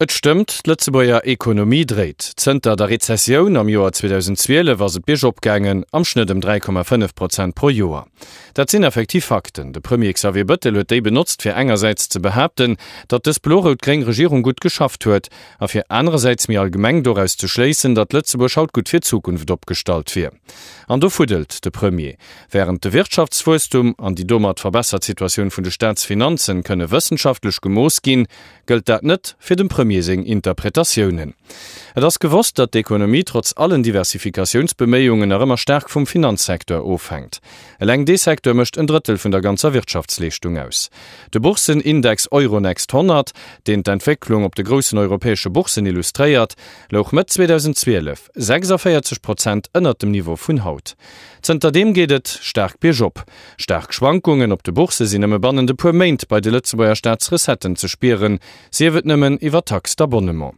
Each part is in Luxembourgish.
Et stëmmt, d'Lëtzebuerger Ekonomie dréit. Zënter der Rezessioun am Joer 2012 ass et biergop gaangen, am Schnëtt ëm 3,5 Prozent pro Joer. Dat sinn effektiv Fakten. De Premier Xavier Bëttel huet déi benotzt, fir engersäits ze behaapten, datt dës blo-rout-gréng Regierung gutt geschafft huet, a fir anerersäits méi allgemeng doraus ze schléissen, datt Lëtzebuerg haut gutt fir d'Zukunft opgestallt wier. An do fuddelt de Premier. Wärend de Wirtschaftswuesstum an déi domat verbessert Situatioun vun de Staatsfinanzen kënne wëssenschaftlech gemooss ginn, gëllt dat net fir dem Premier seng Interpretatiounen. Et ass gewosst, datt d'Ekonomie trotz allen Diversifikatiounsbeméiungen nach ëmmer staark vum Finanzsecteur ofhänkt. Eleng dee Secteur mécht en Drëttel vun der ganzer Wirtschaftsleeschtung aus. De Boursenindex Euronext 100, deen d'Entwécklung op de groussen europäesche Boursen illustréiert, louch Mëtt 2012 46 Prozent ënnert dem Niveau vun haut. Zënterdeem geet et staark biergop. Staark Schwankungen op de Boursse sinn nëmme bannent e puer Méint bei de Lëtzebuerger Staatsrecetten ze spieren, sief et nëmmen iwwer Taxe d'abonnement.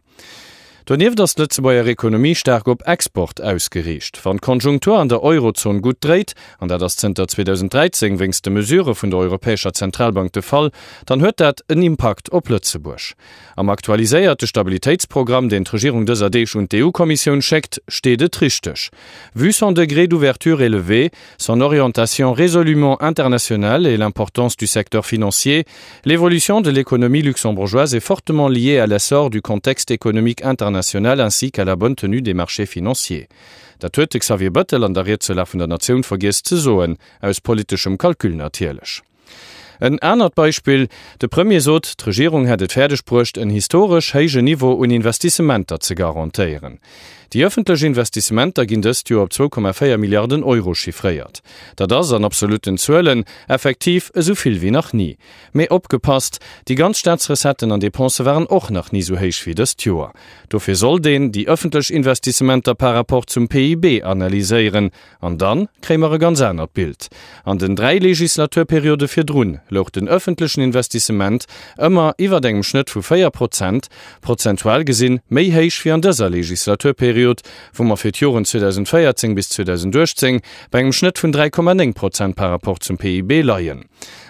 Donieft ass d'Lëtzebuerger Ekonomie staark op Export ausgeriicht. Wann d'Konjunktur an der Eurozon gutt dréit, an dat ass zënter 2013 wéinst de Mesurë vun der Europäescher Zentralbank de Fall, dann huet dat en Impakt op Lëtzebuerg. Am aktualiséierte Stabilitéitsprogramm, deen d'Regierung dëser Deeg un d'EU-Kommissioun schéckt, steet et richteg, Vu son degré d'ouverture élevé, son orientation résolument internationale et l'importance du secteur financier, l'évolution de l'économie luxembourgeoise est fortement liée à l'essor du contexte économique international ainsi qu'à la bonne tenue des marchés financiers. Dat huet de Xavier Bettel an der Ried zur Lag vun der Natioun vergiess ze soen, aus politeschem Calcul natierlech. En anert Beispill, De Premier sot, d'Regierung hätt et fäerdeg bruecht, en historesch héije Niveau un Investissementer ze garantéieren. Déi ëffentlech Investissementer ginn dëst Joer op 2,4 Milliarden Euro chiffréiert. Dat ass, an absolutten Zuelen, effektiv esou vill wéi nach ni. Mee opgepasst, Déi ganz Staatsrecetten an Depensë waren och nach ni esou héich wéi dëst Joer. Dofir sollt een déi ëffentlech Investissementer par rapport zum PIB analyséieren, An dann kréie mer e ganz anert Bild. An den 3 Legislaturperiode virdrun louch den öffentlechen Investissement ëmmer iwwert engem Schnëtt vu 4 Prozent, prozentual gesinn méi héich wéi an dëser Legislaturperiod, wou mer fir d'Joren 2014 bis 2018 bei engem Schnëtt vun 3,9 Prozent par rapport zum PIB leien.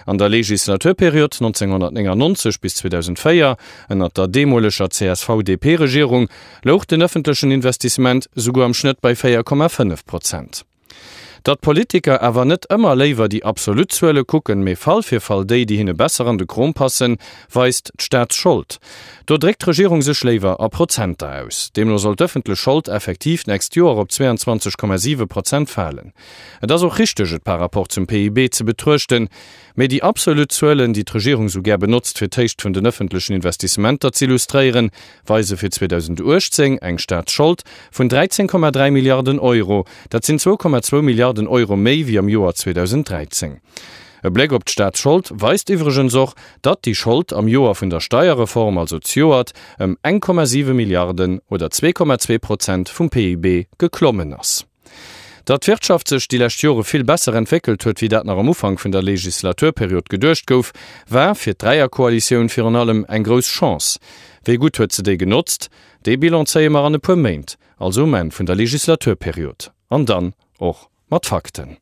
An der Legislaturperiod 1999 bis 2004, ënnert der deemoleger CSV-DP-Regierung, louch den ëffentlechen Investissement souguer am Schnëtt bei 4,5 Prozent. Datt d'Politiker awer net ëmmer léiwer déi absolut Zuele kucken, mee Fall fir Fall déi, déi hinne besser an de Krom passen, weist d'Staatsschold. Do dréckt d'Regierung sech léiwer a Prozenter aus. Deemno soll d'ëffentlech Schold effektiv d'nächst Joer op 22,7 Prozent falen. Et ass och richteg, et par rapport zum PIB ze betruechten, Mee déi absolut Zuelen, déi d'Regierung sou gär benotzt, fir d'Héicht vun den ëffentlechen Investissementer z'illustréieren, weise fir 2018 eng Staatsschold vun 13,3 Milliarden Euro. Dat sinn 2,2 Milliarden Euro méi wéi am Joer 2013. E Bléck op d'Staatsschold weist iwwregens och, datt déi Schold am Joer vun der Steierreform, also zejoert, ëm 1,7 Milliarden oder 2,2 Prozent vum PIB geklommen ass. Datt d'Wirtschaft sech déi lescht Jore vill besser entwéckelt huet, wéi dat nach am Ufank vun der Legislaturperiod geduecht gouf, war fir d'Dräierkoalitioun virun allem eng grouss Chance. Wéi gutt huet se déi genotzt? Dee Bilan zéie mer an e puer Méint, also um Enn vun der Legislaturperiod. An dann och mat Fakten.